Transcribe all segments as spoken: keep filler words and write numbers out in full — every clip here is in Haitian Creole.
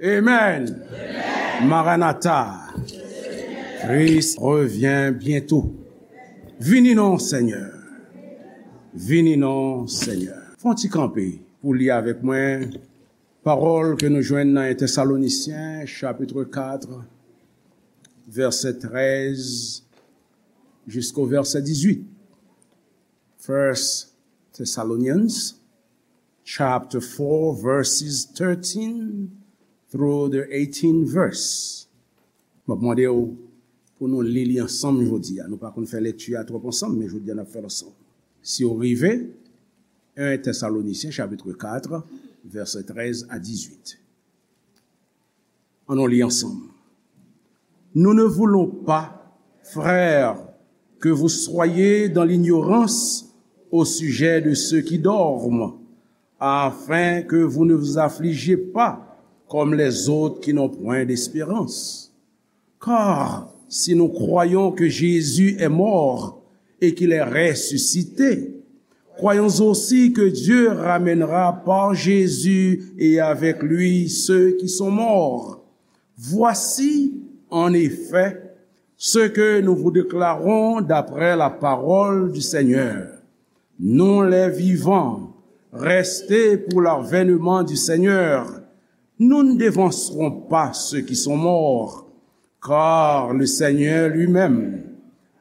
Amen. Maranatha. Christ revient bientôt. Vini non, Seigneur. Vini non, Seigneur. Fè yon ti kanpe pou li avèk mwen pawòl ke nou jwenn nan en Tèsalonisyen, chapit kat, vèsè trèz jisko vèsè dizuit. First Thessalonians chapter four, verses thirteen through the eighteen verse. M ap mande w pou nou li li ansanm jodi a. Nou pa konn fè lekti a twòp ansanm, men jodi a n ap fè l ansanm. Si w rive, en Tèsalonisyen, chapit kat, vèsè trèz a dizuit. Ann nou li ansanm. Nous ne voulons pas, frères, que vous soyez dans l'ignorance au sujet de ceux qui dorment, afin que vous ne vous affligiez pas comme les autres qui n'ont point d'espérance. Car si nous croyons que Jésus est mort et qu'il est ressuscité, croyons aussi que Dieu ramènera par Jésus et avec lui ceux qui sont morts. Voici, en effet, ce que nous vous déclarons d'après la parole du Seigneur. Nous les vivants, restés pour l'avènement du Seigneur, nous ne devancerons pas ceux qui sont morts, car le Seigneur lui-même,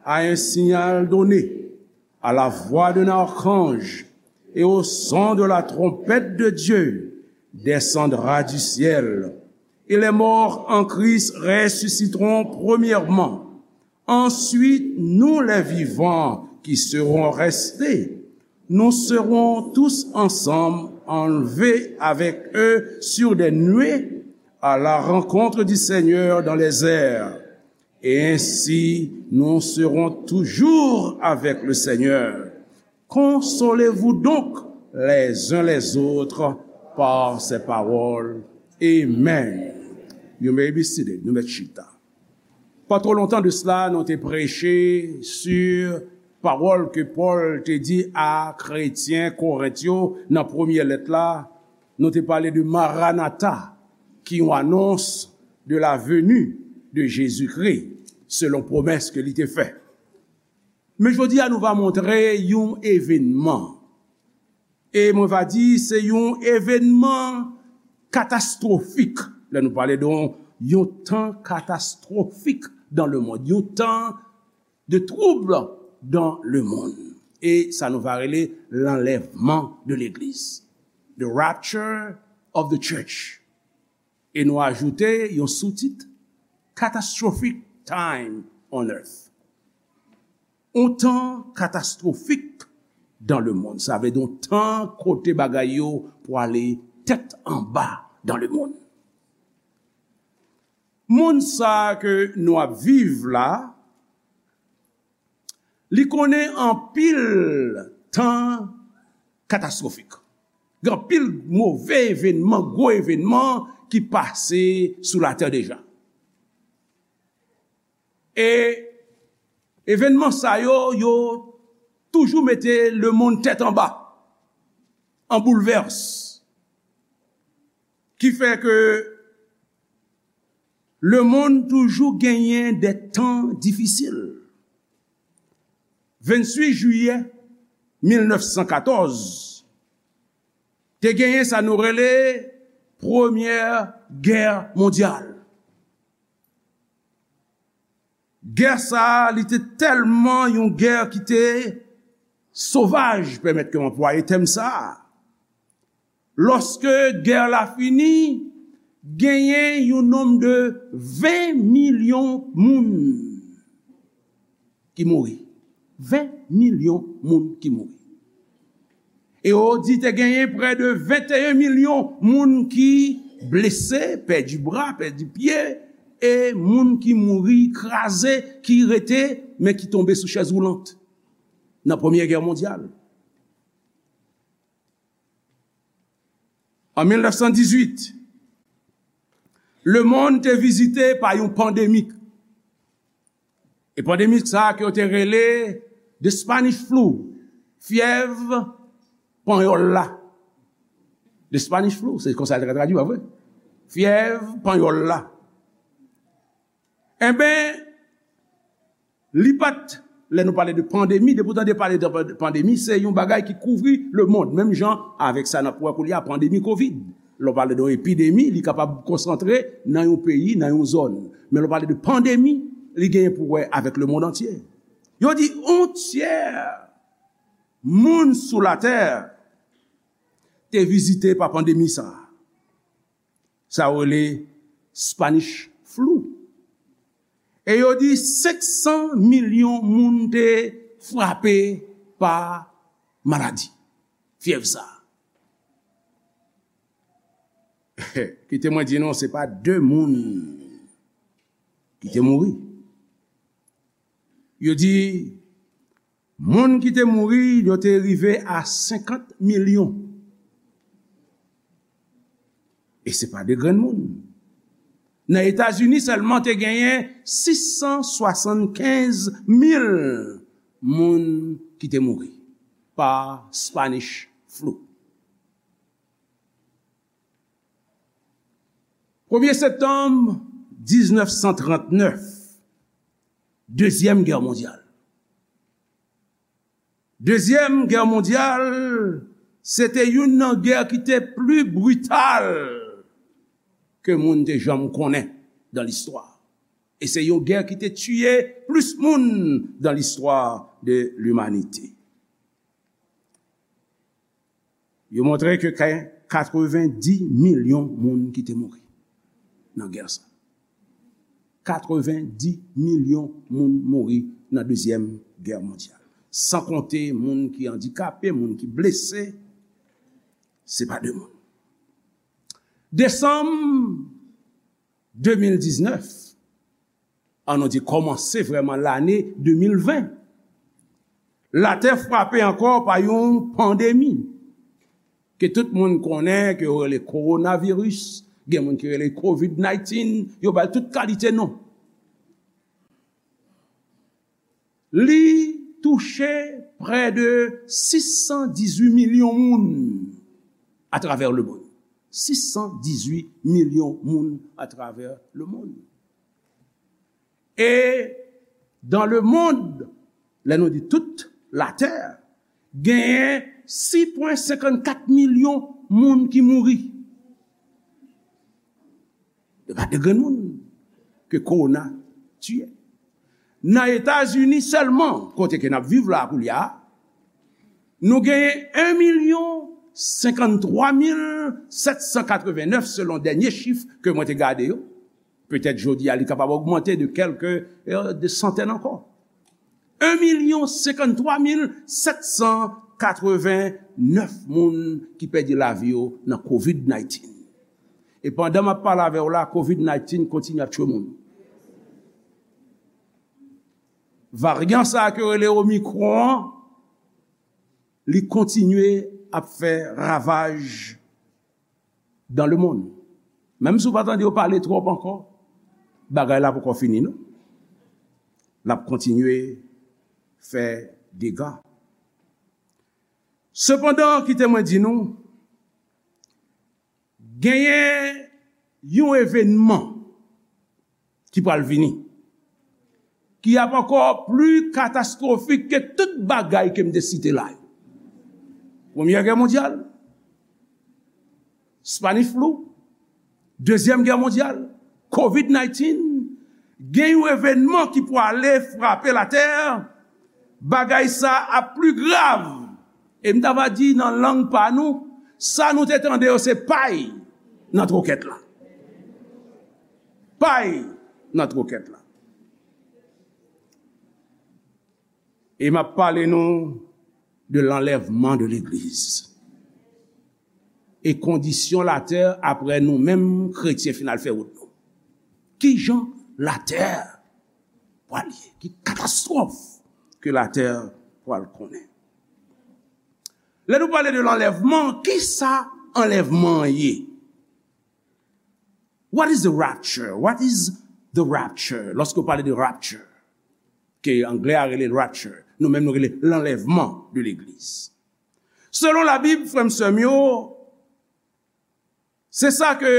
à un signal donné, à la voix d'un archange et au son de la trompette de Dieu, descendra du ciel. Et les morts en Christ ressusciteront premièrement. Ensuite, nous les vivants qui serons restés, nous serons tous ensemble enlevés avec eux sur des nuées à la rencontre du Seigneur dans les airs. Et ainsi, nous serons toujours avec le Seigneur. Consolez-vous donc les uns les autres par ces paroles. Amen. You may be seated. Nou mèt chita. Pa twò lontan de sila, nou te preche sou pawòl ke Pòl te di a kretyen Korent yo nan premye lèt la. Nou te pale de Maranatha, ki yon anons de la venue de Jésus-Christ, selon pwomès ke li te fè. Men jodi a, nou va montre yon evènman. E mwen va di, se yon evènman katastwofik. Lè nou pale de yon, yon tan katastwofik dans le monde, yon tan de trouble dans le monde. E sa nou va rele l'enlèvement de l'église, the rapture of the church. E nou ajoute yon soutit, Catastrophic Time on Earth. Yon tan katastwofik dans le monde. Sa vle di yon tan kote bagay yo pwale tèt anba dans le monde. Monn sa ke nou ap viv la, li konnen anpil tan katastwofik. Gen anpil move evènman, gwo evènman ki pase sou latè deja. E evènman sa yo, yo toujou mete lemonn tèt anba, an boulvès. Ki fè ke lemonn toujou genyen de tan difisil. Venntuit jiyè mil nèf san katòz, te genyen sa nou rele Premyè Gè Mondyal. Gè sa a, li te tèlman yon gè ki te sovaj, pèmèt ke m anplwaye tèm sa a. Lòske gè la fini, genyen yon nonb de ven milyon moun ki mouri. Ven milyon moun ki mouri. E yo di te genyen prè de venteyen milyon moun ki blese, pèdi bra, pèdi pye, e moun ki mouri, kraze, ki rete, men ki tonbe sou chèz woulant nan Premyè Gè Mondyal. An mil nèf san dizuit, lemonn te vizite pa yon pandemik. E pandemik sa a ke yo te rele the Spanish flu, fyèv panyòl la. The Spanish flu, se konsa l te ka tradui, pa vre? Fyèv panyòl la. Enben, li pa t, lè nou pale de pandemi, depi w tande pale de pandemi, se yon bagay ki kouvri lemonn. Menm jan avèk sa n ap wè koulye a, pandemi kovid. Lè w pale de yon epidemi, li kapab konsantre nan yon peyi, nan yon zòn. Men lè w pale de pandemi, li genyen pou wè avèk lemonn antye. Yo di yon tyè moun sou latè te vizite pa pandemi sa a. Sa yo rele Spanish flu. E yo di senk san milyon moun te frape pa maladi, fyèv sa. Kite mwen di nou, se pa de moun ki te mouri. Yo di moun ki te mouri, yo te rive a senkant milyon. E se pa de grenn moun. Nan Etazini sèlman te genyen sis san swasannkenz mil moun ki te mouri pa Spanish flu. Premye septanm diznèf san trannèf, Dezyèm Gè Mondyal. Dezyèm Gè Mondyal, se te youn nan gè ki te pli brital ke moun te janm konnen dan listwa. E se yon gè ki te tiye plis moun dan listwa de limanite. Yo montre ke kay katrevendi milyon moun ki te mouri nan gè sa. Katrevendi milyon moun mouri nan Dezyèm Gè Mondyal. San konte moun ki andikape, moun ki blese, se pa de moun. Desanm de mil diznèf, an nou di kòmanse vrèman lane de mil ven, latè frape ankò pa yon pandemi ke tout moun konnen, ke yo rele kowonaviris, gen moun ki rele kovid naytin, yo ba l tout kalite non. Li touche prè de sis san dizuit milyon moun atravè lemonn. Sis san dizuit milyon moun atravè lemonn. E dan lemonn, lè nou di tout latè, genyen sis pwen senkannkat milyon moun ki mouri. E pa de grenn moun ke kowona tiye. Nan Etazini sèlman, kote ke n ap viv la koulye a, nou genyen en milyon senkanntwa mil sèt san katrevennèf selon dènye chif ke mwen te gade yo. Petèt jodi a, li kapab ogmante de kèlke, euh, de santèn ankò. En milyon senkanntwa mil sèt san katrevennèf moun ki pèdi lavi yo nan kovid naytin. E pandan m ap pale avè w la, kovid naytin kontinye ap tchwe moun. Varyan sa a ke yo rele Omicron an, li kontinye ap fè ravaj dans le monde. Menm si w pa tande yo pale twòp ankò, bagay la poko fini non. L ap kontinye fè dega. Sepandan, kite mwen di nou, genyen yon evènman ki pral vini, ki ap ankò pli katastwofik ke tout bagay ke m te site la yo. Premyè Gè Mondyal, Spanish flu, Dezyèm Gè Mondyal, kovid naytin, gen yon evènman ki pwale frape latè, bagay sa ap pli grav. E m ta va di nan lang pa nou, sa nou te tande yo se pay nan twokèt la. Pay nan twokèt la. E m ap pale nou de l'enlèvement de l'église. E kondisyon latè apre nou menm kretyen fin al fè wout nou. Kijan latè pral ye? Ki katastwòf ke latè pral konnen? Lè nou pale de l'enlèvement, kisa anlèvman an ye? What is the rapture? What is the rapture? Lòske w pale de rapture, ke anglè a rele rapture, nou menm nou rele l'enlèvement de l'église. Selon Labib, frè m, sè m yo, se sa ke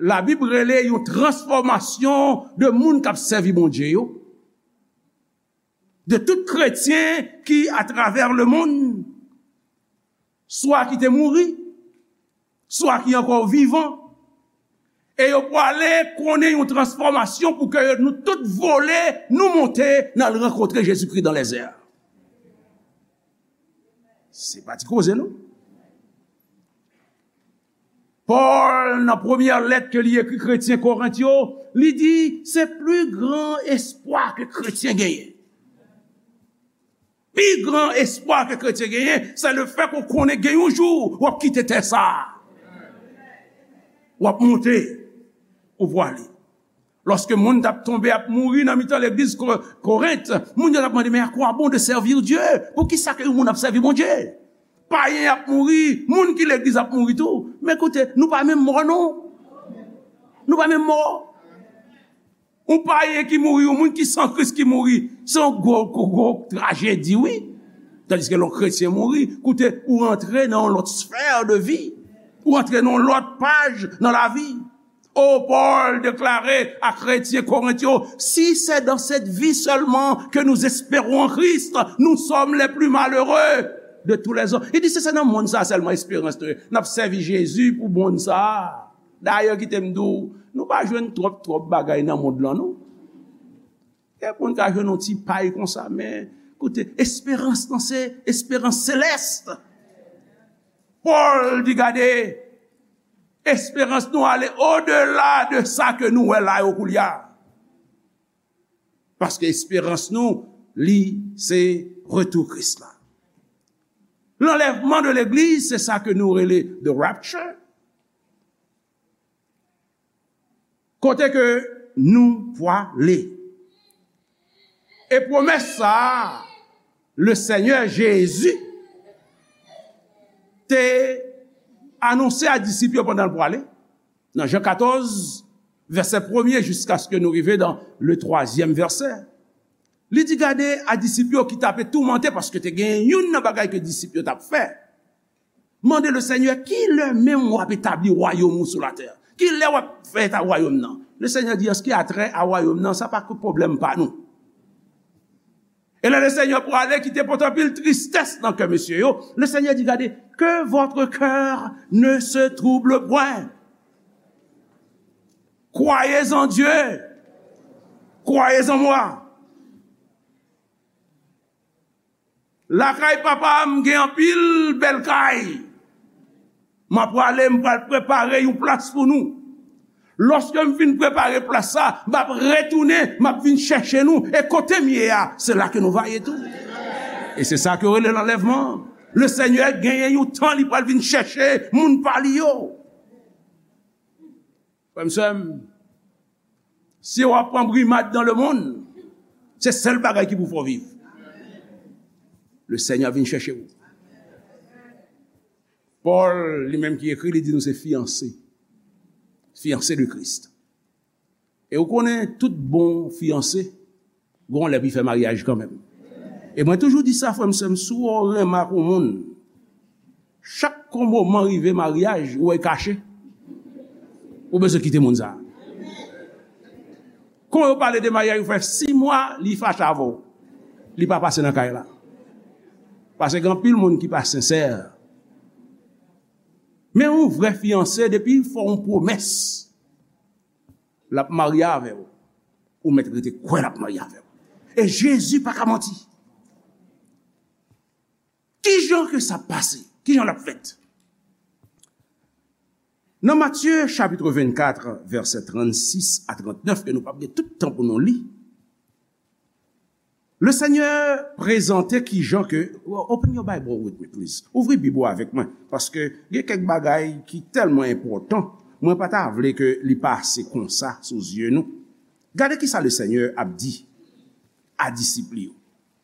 Labib rele yon transfòmasyon de moun k ap sèvi Bondye yo, de tout kretyen ki atravè lemonn, swa ki te mouri, swa ki ankò vivan, e yo prale konnen yon transfòmasyon pou ke nou tout vole, nou monte, n al rankontre Jezikri dans les airs. Se pa ti koze, non. Pòl, nan premyè lèt ke li ekri kretyen Korent yo, li di, se pli gran espwa ke kretyen genyen. Pi gran espwa ke kretyen genyen, se le fè ke w konnen gen yon jou w ap kite tè sa a. W ap monte, ou prale. Lòske moun t ap tonbe, ap mouri nan mitan legliz Ko-, Korent, moun yo t ap mande, mais à quoi bon de servir Dieu? Poukisa ke yon moun ap sèvi Bondye? Payen ap mouri, moun ki legliz ap mouri tou. Men koute, nou pa menm mò, non. Nou pa menm mò. Yon payen ki mouri, yon moun ki san Kris ki mouri, se yon gwo, gwo, gwo trajedi, wi. Tandiske lè yon kretyen mouri, koute, ou rantre nan yon lòt sfè de vi. Ou rantre nan yon lòt paj nan lavi. O, Pòl deklare a kretyen Korent yo, si c'est dans cette vie seulement que nous espérons en Christ, nous sommes les plus malheureux de tous les hommes. Li di, si se nan monn sa sèlman esperans nou ye, n ap sèvi Jezi pou monn sa. Dayè, kite m di w, nou pa jwenn twòp, twòp bagay nan mond lan, non. Kèk moun ka jwenn yon ti pay konsa, men, koute, esperans lan se esperans selès. Pòl di, gade, esperans nou ale odela de sa ke nou wè la yo koulye a. Paske esperans nou, li, se retou Kris la. Lanlèvman de legliz, se sa ke nou rele the rapture. Kote ke nou prale. E pwomès sa a, le Senyè Jezi te anonse a disip yo pandan l prale, nan Jan katòz, vèsè premye, jiskaske nou rive nan le twazyèm vèsè. Li di, gade, a disip yo ki t ape toumante, paske te gen youn nan bagay ke disip yo t ap fè. Mande le Senyè, ki lè menm w ap etabli wayòm ou sou latè? Ki lè w ap fè eta wayòm nan? Le Senyè di, an ce qui a trait a wayòm nan, sa pa ke pwoblèm pa nou. E lè le Senyè prale, ki te pote anpil tristès nan kè mesye yo, le Senyè di, gade, que votre cœur ne se trouble point. Croyez en Dieu. Croyez en moi. Lakay papa m gen anpil bèl kay. M ap prale, m pral prepare yon plas pou nou. Lòske m fin prepare plas sa, m ap retounen, m ap vin chèche nou. E kote m ye a, se la ke nou va ye tou. E se sa ke yo rele lanlèvman. Le Senyè genyen yon tan li pral vin chèche moun pa li yo. Frè m, sè m, si w ap pran brimad dans le monde, se sèl bagay ki pou fè w viv. Le Senyè vin chèche w. Pòl, li menm ki ekri, li di nou se fiyanse. Fiyanse de Kris. E ou konnen, tout bon fiyanse, gon lè pou l fè maryaj kanmenm. E mwen toujou di sa, frè m, sè m, si w renmen ak yon moun, chak yon moman rive maryaj, ou wè l kache, ou bezwen kite moun sa a. Kon yo pale de maryaj, ou fè sis mwa, li fache avè w. Li pa pase nan kay la. Paske gen anpil moun ki pa sensè. Men yon vrè fiyanse, depi l fè w yon pwomès, l ap marye avè w, ou mèt rete kwè l ap marye avè w. E Jezi pa ka manti. Ki jan ke sa pase? Ki jan l ap fèt? Nan Matye chapit vennkat, vèsè trannsis a trannèf, ke nou p ap gen tout tan pou nou li, le Senyè prezante ki jan ke, open your Bible with me, please. Ouvri Bib ou avèk mwen, paske gen kèk bagay ki tèlman enpòtan, mwen pa ta vle ke li pase konsa sou zye nou. Gade ki sa le Senyè ap di a disip li yo.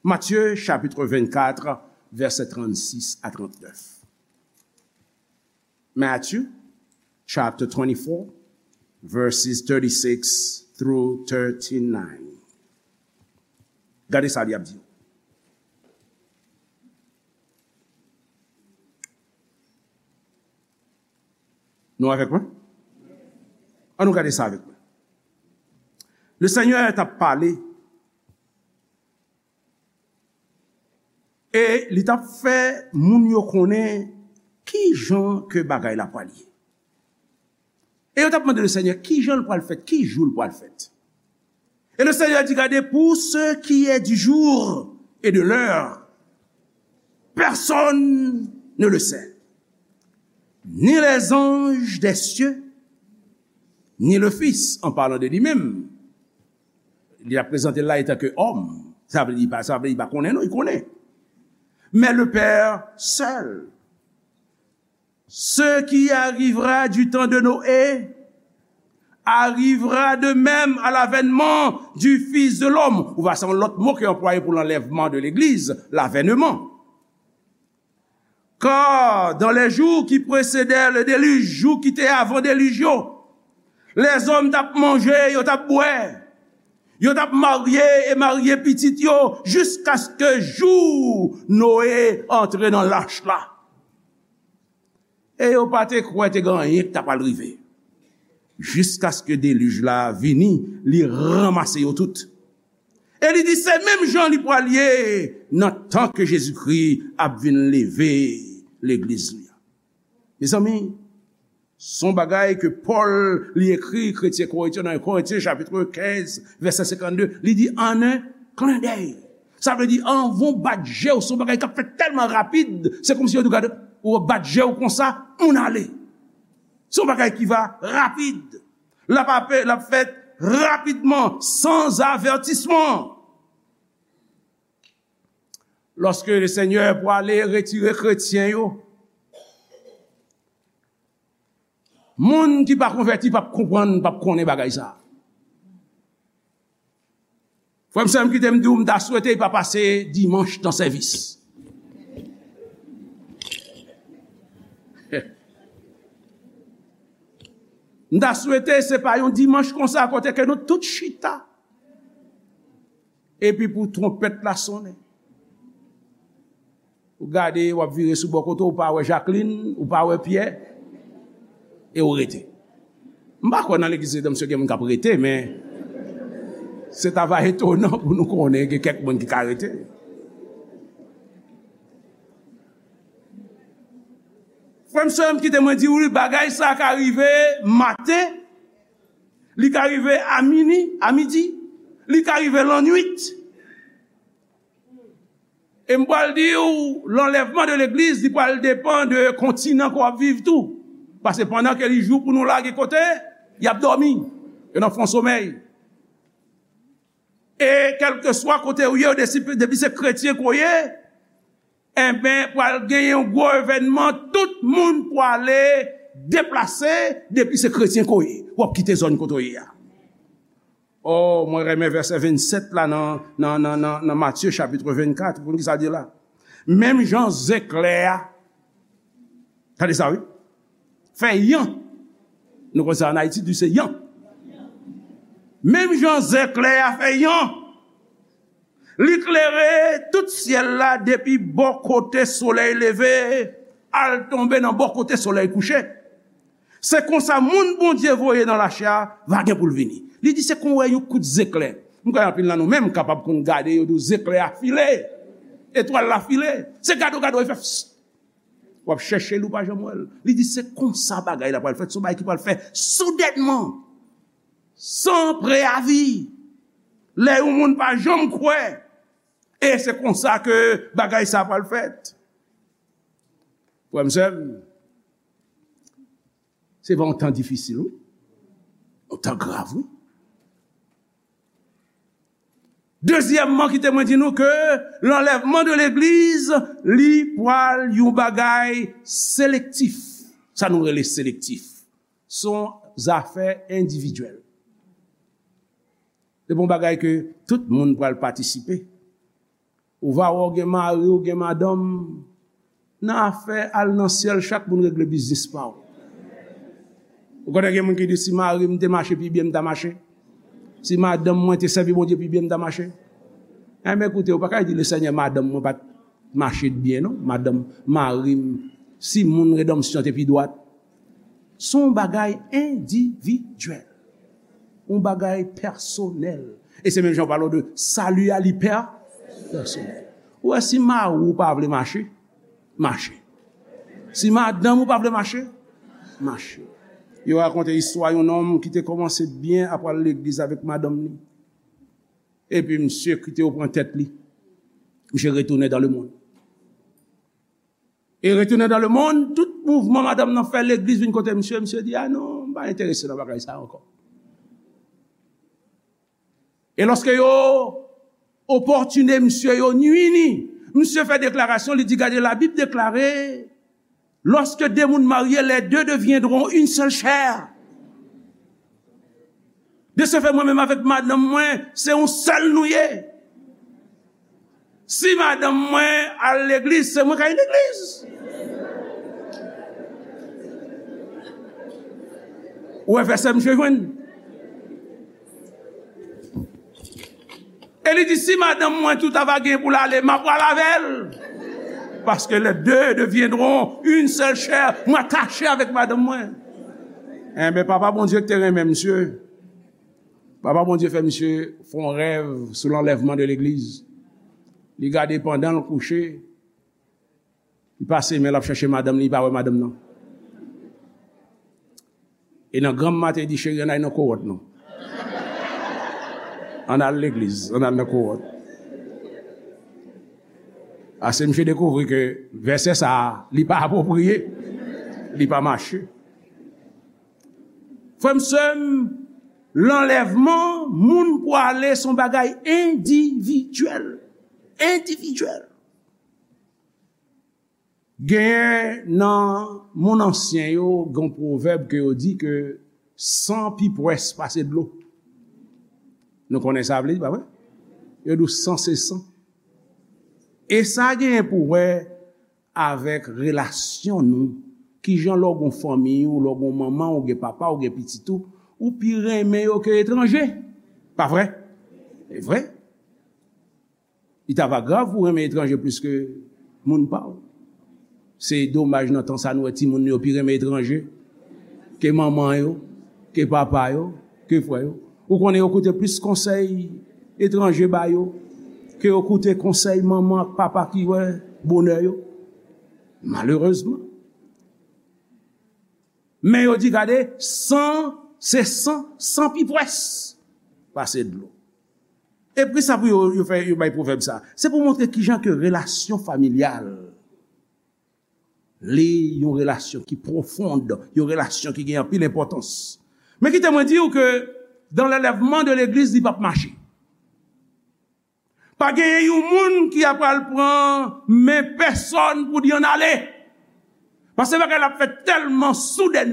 Matye chapit vennkat, vèsè trannsis a trannèf. Matthew chapter twenty-four, verses thirty-six through thirty-nine. Gade sa li ap di. Nou avèk mwen? Ann nou gade sa avèk mwen. Le Senyè t ap pale e li t ap fè moun yo konnen ki jan ke bagay la pral ye. E yo t ap mande le Senyè ki jan l pral fèt, ki jou l pral fèt. Et le Seigneur dit, gardez, pour ce qui est du jour et de l'heure, personne ne le sait, ni les anges des cieux, ni le Fils, en parlant de lui-même. Li ap prezante l la etan ke òm. Sa vle di, li pa, sa vle di, li pa konnen, non, li konnen. Mais le Père seul. Ce qui arrivera du temps de Noé arrivera de même à l'avènement du Fils de l'homme. Ou va, se yon lòt mo ki anplwaye pou lanlèvman de legliz, l'avènement. Car dans les jours qui précédèrent le déluge, jou ki te avan delij yo, lèzòm t ap manje, yo t ap bwè, yo t ap marye e marye pitit yo, jiskaske jou Noé antre nan lach la. E yo pa te kwè te gen anyen ki ta pral rive. Jiskaske delij la vini, li ranmase yo tout. E li di se menm jan li pral ye nan tan ke Jezikri ap vin leve legliz li a. Mezanmi, se yon bagay ke Pòl li ekri kretyen Korent yo nan Korentyen chapit kenz, vèsè senkannde, li di, en un clin d'œil. Sa vle di, anvan w bat je w, se yon bagay k ap fèt tèlman rapid, se kòmsi yo di w gade, ou bat je w konsa, moun ale. Se yon bagay ki va rapid. L ap ape, l ap fèt rapidman, sans avertissement. Lòske le Senyè pwale retire kretyen yo, moun ki pa konvèti p ap konprann, p ap konnen bagay sa. Frè m, sè m, kite m di w, m ta swete li pa pase dimanch nan sèvis. M ta swete se pa yon dimanch konsa kote ke nou tout chita. Epi pou twonpèt la sonnen. Ou gade, w ap vire sou bò kote w, ou pa wè Jacqueline, ou pa wè Pierre, e ou rete. M pa kwè nan legliz Redanmsyon gen moun k ap rete, men se ta va etonan pou nou konnen gen kèk moun ki ka rete. Frè m, sè m, kite mwen di w, bagay sa ka rive maten, li ka rive a mini, a midi, li ka rive lannwit. E m pral di w, lanlèvman de legliz, li pral depann de kontinan ke w ap viv tou. Paske pandan ke li jou pou nou la, gen kote y ap dòmi, yo nan fon somèy. E kèlkeswa kote w ye, depi, depi se kretyen ke w ye, enben, pral gen yon gwo evènman, tout moun pwale deplase, depi se kretyen ke w ye. W ap kite zòn kote w ye a. Oh, mwen renmen vèsè vennsèt la nan, nan, nan, nan, nan Matye chapit vennkat. Pou ki sa di la? Menm jan zeklè a, tande sa wi, fè yan. Nou konn sa an Ayiti, di se yan. Menm jan zeklè a fè yan, li klere tout syèl la depi bò kote solèy leve al tonbe nan bò kote solèy kouche. Se konsa moun Bondye voye nan lachè a va gen pou l vini. Li di se kon wè yon kout zeklè. M kwè anpil nan nou menm kapab konn gade yo di w zeklè a file, etwal la file. Se gade w gade w e fè psst. W ap chèche l ou pa janm wè l. Li di se konsa bagay la pral fèt, se yon bagay ki pral fèt soudènman, san preyavi, lè yon moun pa janm kwè. E se konsa ke bagay sa pral fèt. Frè m, sè m, se pa yon tan difisil, wi. Yon tan grav, wi. Dezyèmman, kite mwen di nou ke lanlèvman de legliz, li pral yon bagay selektif. Sa nou rele selektif. Se yon zafè endividyèl. Se pa yon bagay ke tout moun pral patisipe. Ou va wè w gen mari, w gen madanm, nan afè al nan syèl, chak moun regle biznis pa w. Ou konnen gen moun ki di, si mari m te mache pi byen, m ta mache. Si madanm mwen te sèvi Bondye pi byen, m ta mache. Enben, koute, ou pa ka di, le Senyè, madanm mwen pa t mache byen, non. Madanm, mari m, si moun Redanmsyon te pi dwat, Se yon bagay endividyèl. Yon bagay pèsonèl. E se menm jan w pale de sali a, li pè-, pèsonèl. Ou wè, si mari w pa vle mache, mache. Si madanm ou pa vle mache, mache. Yo rakonte istwa yon nonm ki te kòmanse byen ap al legliz avèk madanm li. Epi misye kite yo pran tèt li. Misye retounen dans le monde. E retounen dans le monde, tout mouvman madanm nan fè legliz vin kote misye, misye di, "A non, m pa enterese nan bagay sa ankò." E lòske yo opòtine misye, yo nwi li, misye fè deklarasyon, li di, "Gade, Labib deklare, lorsque deux moun marye, les deux deviendront une seule chair." De ce fait, mwen menm avèk madanm mwen, se yon sèl nou ye. Si madanm mwen al legliz, se mwen k al legliz. Ou wè vèsè misye jwenn? E li di, "Si madanm mwen tou ta va gen pou l ale, m ap pral avè l. Parce que les deux deviendront une seule chair." Mwen atache avèk madanm mwen. Enben, Papa Bondye ki te renmen misye, Papa Bondye fè misye fè yon rèv sou lanlèvman de legliz. Li gade pandan l kouche, li pase men l ap chèche madanm li, li pa wè madanm nan. E nan granm maten, li di, "Cheri, ann al nan kowòt nou. Ann al legliz, ann al nan kowòt." Ase misye dekouvri ke vèsè sa a, li pa apwopriye, li pa mache. Frè m, sè m, lanlèvman, moun pou ale, se yon bagay endividyèl. Endividyèl. Genyen nan moun ansyen yo, gen yon pwovèb ke yo di ke san pi pwès pase dlo. Nou konnen sa vle di, pa vre? Yo di w san se san. E sa genyen pou wè avèk relasyon nou. Kijan lè w gen fanmi w, lè w gen manman w, gen papa w, gen pitit ou, ou pi renmen yo ke etranje. Pa vre? Se vre. Li ta va grav pou renmen etranje plis ke moun pa w. Se domaj nan tan sa nou wè timoun yo pi renmen etranje ke manman yo, ke papa yo, ke frè yo. Ou konnen yo koute plis konsèy etranje ba yo ke yo koute konsèy manman ak papa ki wè bonè yo. Malerezman. Men yo di, gade, san, se san, san pi pwès pase dlo. E poukisa pou yo, yo fè, yo bay pwovèb sa? Se pou montre kijan ke relasyon familyal, li yon relasyon ki pwofond, yon relasyon ki gen anpil enpòtans. Men kite mwen di w ke dans l'enlèvement de legliz, li p ap mache. Pa genyen yon moun ki ap pral pran men pèsòn pou di ann ale. Paske bagay la ap fèt tèlman soudèn.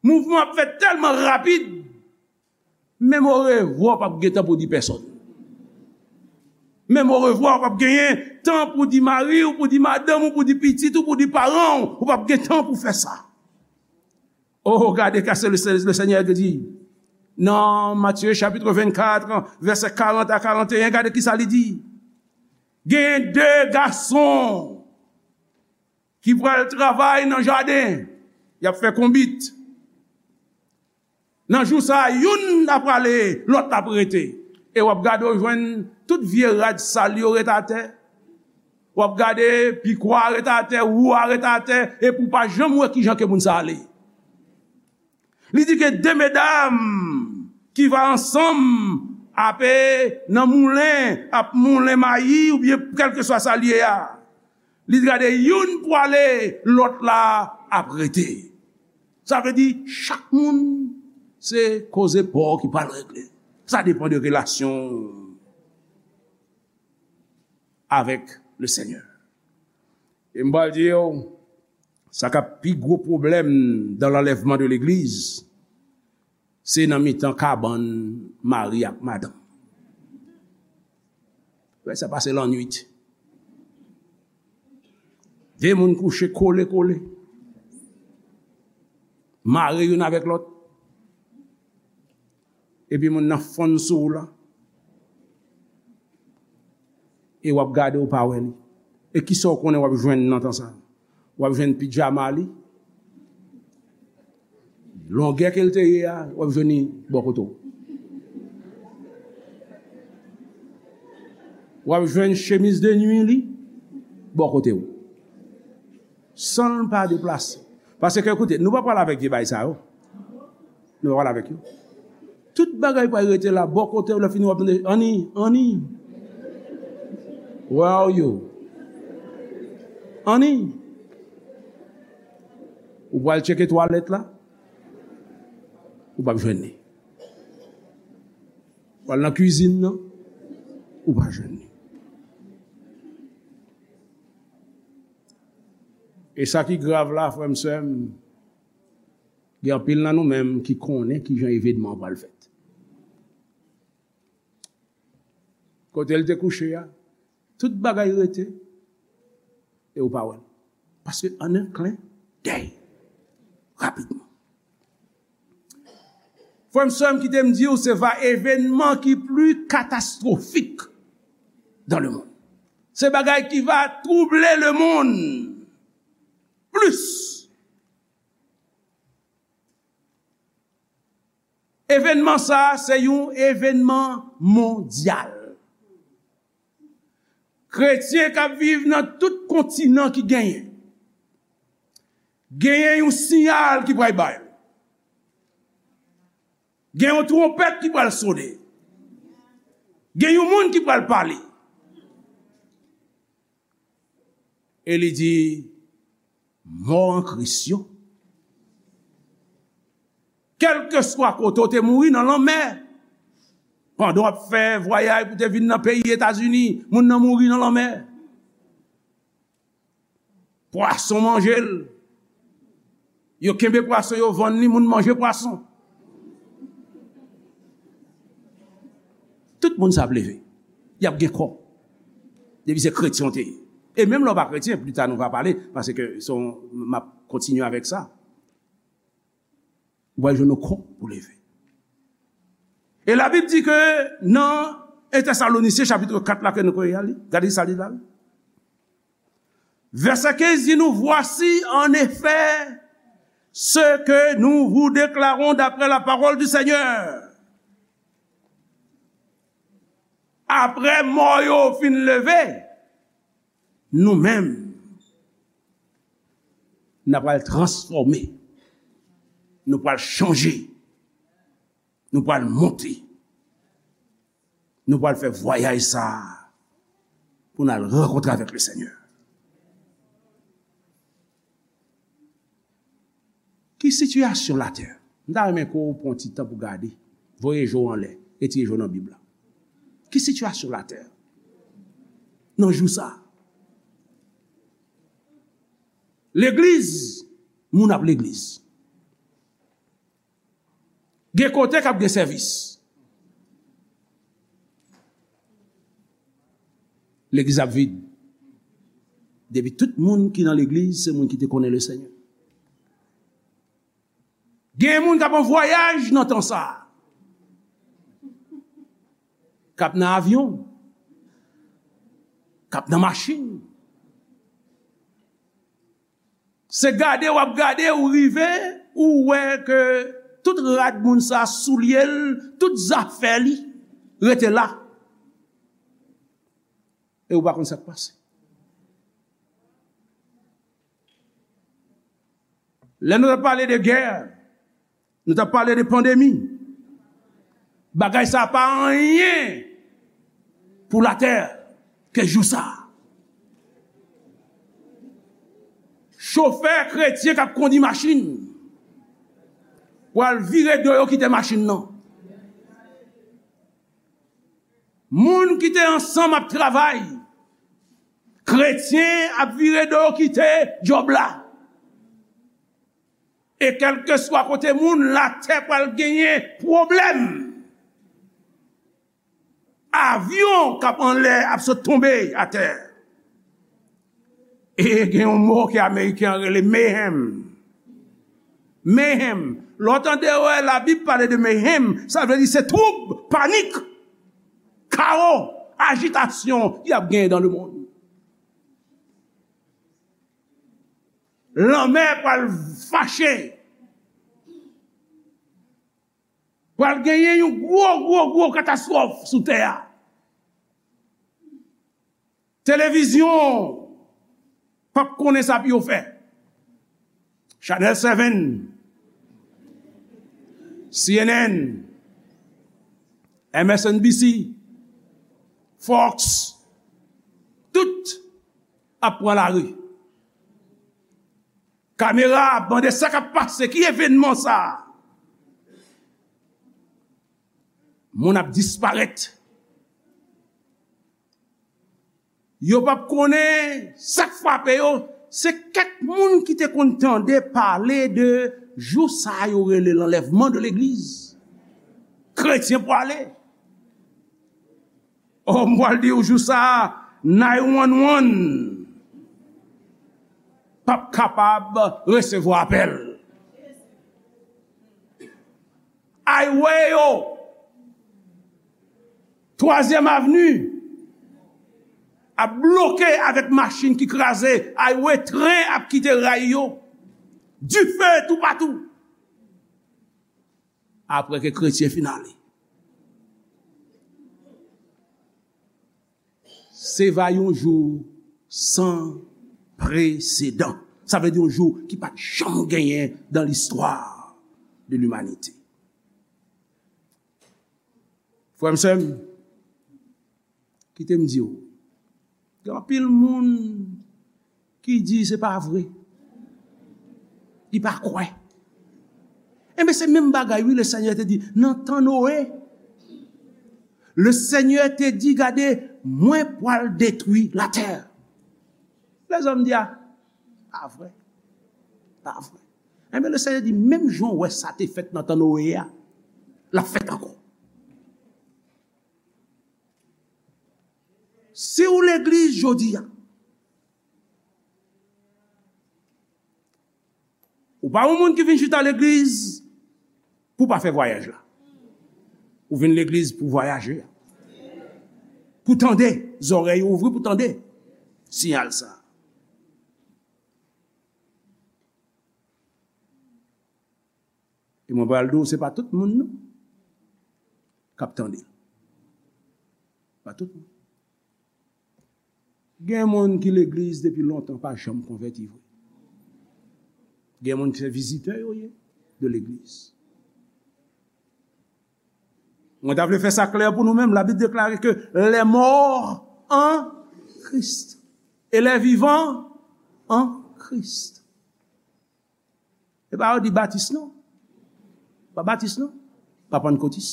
Mouvman ap fèt tèlman rapid. Menm orevwa w p ap gen tan pou di pèsòn. Menm orevwa w p ap genyen tan pou di mari w, pou di madanm ou, pou di pitit ou, pou di paran w. Ou p ap gen tan pou fè sa. Oh, gade sa le, le Senyè di. Nan Matye chapit vennkat, vèsè karant a karanteyen, gade kisa li di. Gen de gason ki pral travay nan jaden. Y ap fè konbit. Nan jou sa a, youn ap prale, lòt la ap rete. E w ap gade, w jwenn tout vye rad sal yo ret atè. W ap gade, pikwa a ret atè, wou a ret atè, epi w pa janm wè kijan ke moun sa ale. Li di ke de medam ki va ansanm ape nan moulen, ap moulen mayi oubyen kèlkeswa sa l ye a. Li di, gade, youn pwale, lòt la ap rete. Sa vle di, chak moun, se koze pa w ki pral regle. Sa depann de relasyon avèk le Senyè. E m pral di w, sa k ap pi gwo pwoblèm dans l'enlèvement de legliz, se nan mitan kabann mari ak madanm. Wè, sa pase lannwit. De moun kouche kole kole. Mare youn avèk lòt. Epi moun nan fonn sou ou la. E w ap gade, ou pa wè li. E kisa w konnen w ap jwenn nan tan sa? W ap jwenn pijama li, Longè ke l te ye a, w ap jwenn li bò kote w. W ap jwenn chemiz de nwi li bò kote w. San l pa deplase. Paske, koute, nou pa pral avèk vye bagay sa yo. Nou pa pral avèk yo. Tout bagay pral rete la, bò kote w, lè fini w ap tande, "Annie, Annie, where are you? Annie." Ou pral tcheke twalèt la, ou p ap jwenn li. Ou al nan kwizin nan, ou pa jwenn li. E sa ki grav la, frè m, sè m, gen anpil nan nou menm ki konnen kijan evènman an pral fèt. Kote l te kouche a, tout bagay rete, e ou pa wè l. Paske an en klen dèy, rapidman. Frè m, sè m, kite m di w, se va evènman ki pli katastwofik dans le monde. Se bagay ki va trouble le monde plis. Evènman sa a, se yon evènman mondyal. Kretyen k ap viv nan tout kontinan ki genyen, genyen yon siyal ki pral bay. Gen yon twonpèt ki pral sone. Gen yon moun ki pral pale. E li di, "Mò an Kris yo." Kèlkeswa kote w te mouri nan lanmè, pandan w ap fè vwayaj pou te vin nan peyi Etazini, moun nan mouri nan lanmè. Pwason manje l. Yo kenbe pwason, yo vann li, moun manje pwason. Tout moun sa ap leve. Y ap gen kò. Depi se kretyen w te ye. E menm lè w pa kretyen, pli ta nou va pale, paske se yon, m ap kontinye avèk sa. Ou pral jwenn yon kò pou leve. E Labib di ke nan en Tèsalonisyen chapit kat la ke nou konnen li, gade sa li la. Vèsè kenz di nou, "Voici en effet ce que nous vous déclarons d'après la parole du Seigneur." Apre mò yo fin leve, nou menm, n ap pral transfòme, nou pral chanje, nou pral monte, nou pral fè vwayaj sa a pou n al rankontre avèk Lesenyè. Ki sitiyasyon latè? M ta renmen ke w pran ti tan pou gade. Voye je w anlè, retire je w nan Bib la. Ki sitiyasyon latè nan jou sa a? Legliz, moun ap legliz. Gen kote k ap gen sèvis. Legliz ap vid. Depi tout moun ki nan legliz, se moun ki te konnen Lesenyè. Gen moun k ap an vwayaj nan tan sa a. K ap nan avyon. K ap nan machin. Se gade w ap gade, ou rive, ou wè ke tout rad moun sa, soulye l, tout zafè li rete la. E ou pa konn sa k pase. Lè nou t ap pale de gè, nou t ap pale de pandemi. Bagay sa pa anyen pou latè ke jou sa. Chofè kretyen k ap kondi machin pral vire do yo kite machin nan. Moun ki te ansanm ap travay, kretyen ap vire do yo kite djòb la. E kèlkeswa kote moun, latè pral genyen pwoblèm. Avyon k ap anlè ap sot tonbe atè. E gen yon mo ke Ameriken an rele mayhem. Mayhem. Lè w tande wè Labib pale de mayhem, sa vle di se twoub, panik, kawo, ajitasyon ki ap genyen dans le monde. Lanmè pral fache. Pral genyen yon gwo, gwo, gwo katastwòf sou tè a. Televizyon p ap konnen sa pou yo fè. Channel seven, C N N, M S N B C, Fox, tout ap pran lari. Kamera ap mande sa k ap pase, ki evènman sa a? Moun ap disparèt. Yo p ap konnen sa k frape yo. Se kèk moun ki te konn tande pale de jou sa a yo rele l'enlèvement de l'église. Kretyen pwale. Oh, m pral di w jou sa a, nine one one p ap kapab resevwa apèl. Highway yo, Twazyèm Avni ap bloke avèk machin ki kraze. Highway, tren ap kite ray yo. Dife toupatou. Apre ke kretyen fin ale. Se va yon jou san presedan. Sa vle di yon jou ki pa t janm genyen dans l'histoire de l'humanité. Frè m, sè m, kite m di w, gen anpil moun ki di se pa vre. Li pa kwè. Enben, se menm bagay, wi, Lesenyè te di, nan tan Noe, Lesenyè te di, gade, mwen pral detwi latè. Lèzòm di, a, pa vre. Pa vre. Enben, Lesenyè di, menm jan w wè sa te fèt nan tan Noe a, l ap fèt ankò. Si w legliz jodi a, ou pa yon moun ki vin chita legliz pou w pa fè vwayaj la. Ou vin legliz pou w vwayaje. Pou w tande, zòrèy ou ouvri pou w tande siyal sa. E mwen pral di w, se pa tout moun non k ap tande l. Pa tout moun. Gen moun ki legliz depi lontan, pa janm konvèti vre. Gen moun ki se vizitè yo ye de legliz. Mwen ta vle fè sa klè pou nou menm. Labib deklare ke les morts en Christ et les vivants en Christ. E pa yo di batis non. Pa batis non. Pa pannkotis.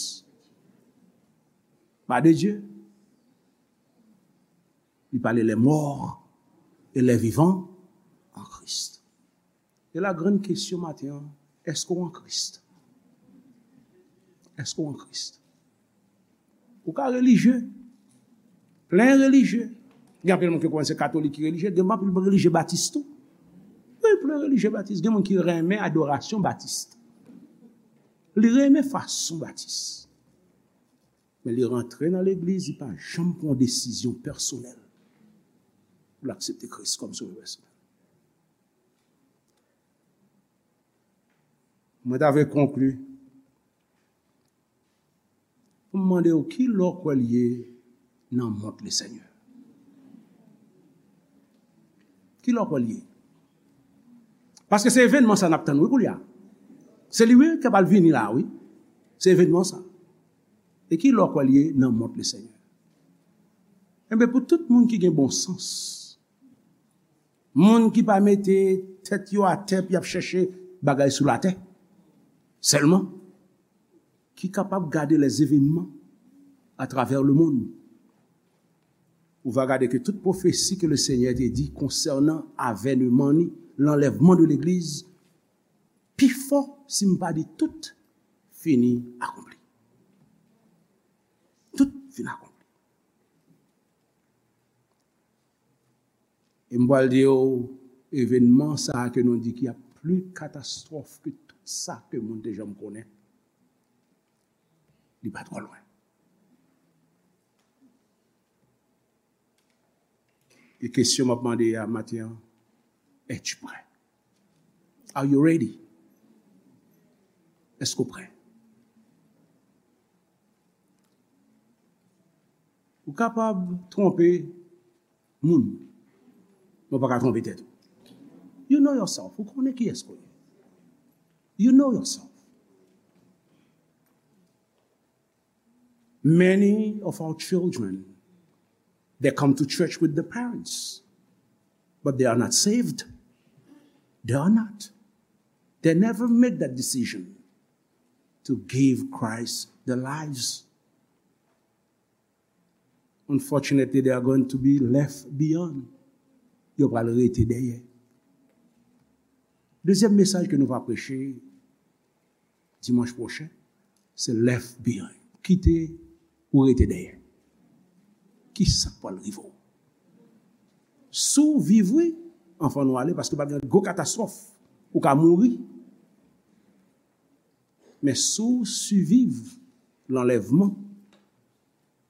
Pa de Dye. Li pale les morts et les vivants en Christ. E la grann kesyon maten an, èske w an Kris? Èske w an Kris? Ou ka relijye, plen relijye. Gen anpil moun ki kwè se katolik ki relijye, gen anpil relijye batis tou. Wi, plen relijye batis. Gen moun ki renmen adorasyon batis. Li renmen fason batis. Men li rantre nan legliz, li pa janm pran yon desizyon pèsonèl pou l aksepte Kris kòm sovè pèsonèl. Mwen ta vle konkli pou m mande w, ki lè w kwè l ye nan mont Lesenyè? Ki lè w kwè l ye? Paske se evènman sa n ap tann, wi, koulye a. Se li, wi, k ap al vini la, wi. Se evènman sa. E ki lè w kwè l ye nan mont Lesenyè? Enben, pou tout moun ki gen bon sans, moun ki pa mete tèt yo atè pou y ap chèche bagay sou latè sèlman, ki kapab gade les événements à travers le monde, ou va gade ke tout pwofesi ke Lesenyè te di konsènan avènman ni, lanlèvman de legliz, pifò, si m pa di tout, fini akonpli. Tout fin akonpli. E m pral di w, evènman sa a ke nou di ki ap pli katastwòf ke tout sa ke moun te janm konnen, li pa twò lwen. E kesyon m ap mande a maten an, es-tu prêt? Are you ready? Èske w prè? Ou kapab twonpe moun, men w pa ka twonpe tèt ou. You know yourself. Ou konnen kiyès ou ye. You know yourself. Many of our children, they come to church with the parents, but they are not saved. They are not. They never make that decision to give Christ their lives. Unfortunately, they are going to be left beyond. Yo pral rete dèyè. Dezyèm mesaj ke nou va preche dimanch pwochen, se left behind. Kite ou rete dèyè. Ki sa k pral rive w? Si w viv, wi, anfan nou ale, paske pa gen gwo katastwòf, ou ka mouri. Men si w siviv lanlèvman,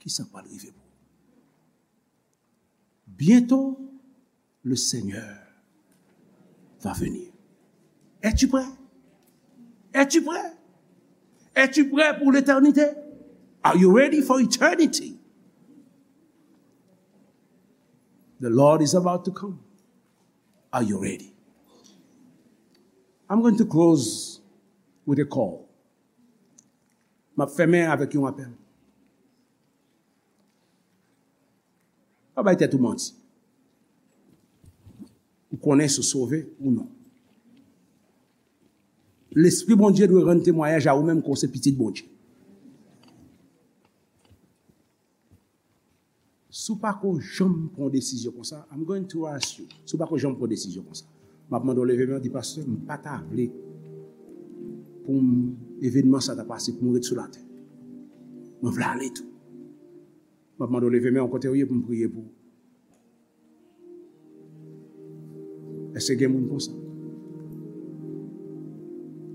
ki sa k pral rive pou ou? Bientôt, le Seigneur va venir. Es-tu prêt? Es-tu prêt? Es-tu prêt pour l'éternité? Are you ready for eternity? The Lord is about to come. Are you ready? I'm going to close with a call. M ap fèmen avèk yon apèl. Pa bay tèt ou manti. Ou konnen si w sove ou non. Lespri Bondye dwe rann temwayaj a ou menm ke w se pitit Bondye. Si w pa ko janm pran yon desizyon konsa, I'm going to ask you, si w pa ko janm pran yon desizyon konsa, m ap mande w leve men w, di, "Pastè, m pa ta vle pou m, evènman sa ta pase pou m ret sou latè. Mwen vle ale tou." M ap mande w leve men w kote w ye pou m priye pou ou. Èske gen moun konsa?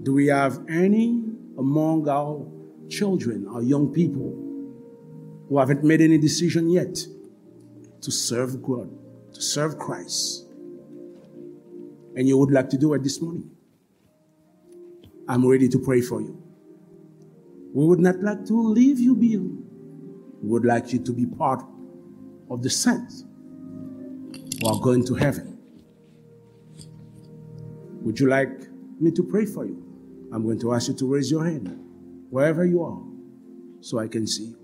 Do we have any among our children, our young people, who haven't made any decision yet to serve God, to serve Christ? And you would like to do it this morning? I'm ready to pray for you. We would not like to leave you behind. We would like you to be part of the saints who are going to heaven. Would you like me to pray for you? I'm going to ask you to raise your hand wherever you are so I can see you.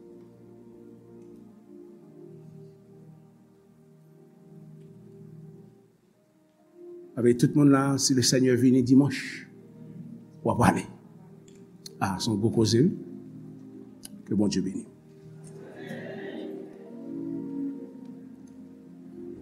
Avèk tout moun la, si le Seigneur vini dimanch, w ap ale. Ah, se yon gwo koze, wi. Ke Bondye beni.